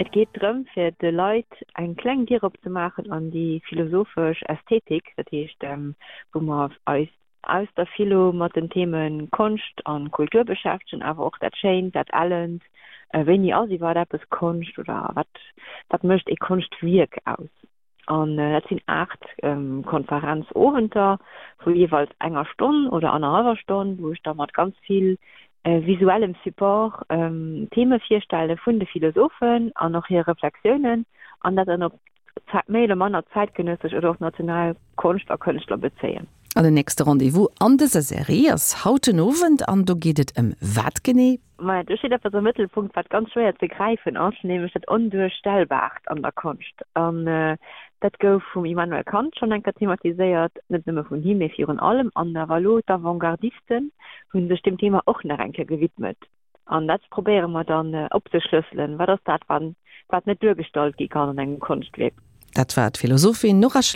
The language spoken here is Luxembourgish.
Et geet drëm, fir de Leit eng kleng Dier opzemaachen an déi philosophesch Ästhetik, dat heescht, wou mer eis aus der Philo mat den Theme Konscht a Kultur beschäftegen, awer och dat Schéint, dat Ellent, wéini ass iwwerhaapt eppes Konscht oder wat, wat mécht ee Konschtwierk aus? An dat sinn 8 Konferenzowenter vu jeeweils enger Stonn oder annerhallwer Stonn, wou ech da mat ganz vill visuellem Support Theme virstelle vun de Philosophen an och hir Reflexiounen an dat dann op méi oder manner zäitgenëssesch oder och national Konscht a Kënschtler bezéien. An den nächste Rendez-vous an dëser Serie ass haut den Owend an do geet et ëm wat genee? Maja, do steet eppes am Mëttelpunkt, wat ganz schwéier ze gräifen ass, nämlech dat Onduerstellbaart an der Konscht. An dat gouf vum Immanuel Kant schonn eng Kéier thematiséiert, net nëmme vun him, mee virun allem. An awer elo d'Avantgardisten hu sech deem Thema och nach eng Kéier gewidmet. An dat probéiere mer dann opzeschlësselen, Wat ass dat, wat net duergestallt gi kann an engem Konschtwierk? Dat war d'Philosophin Nora Schlechter.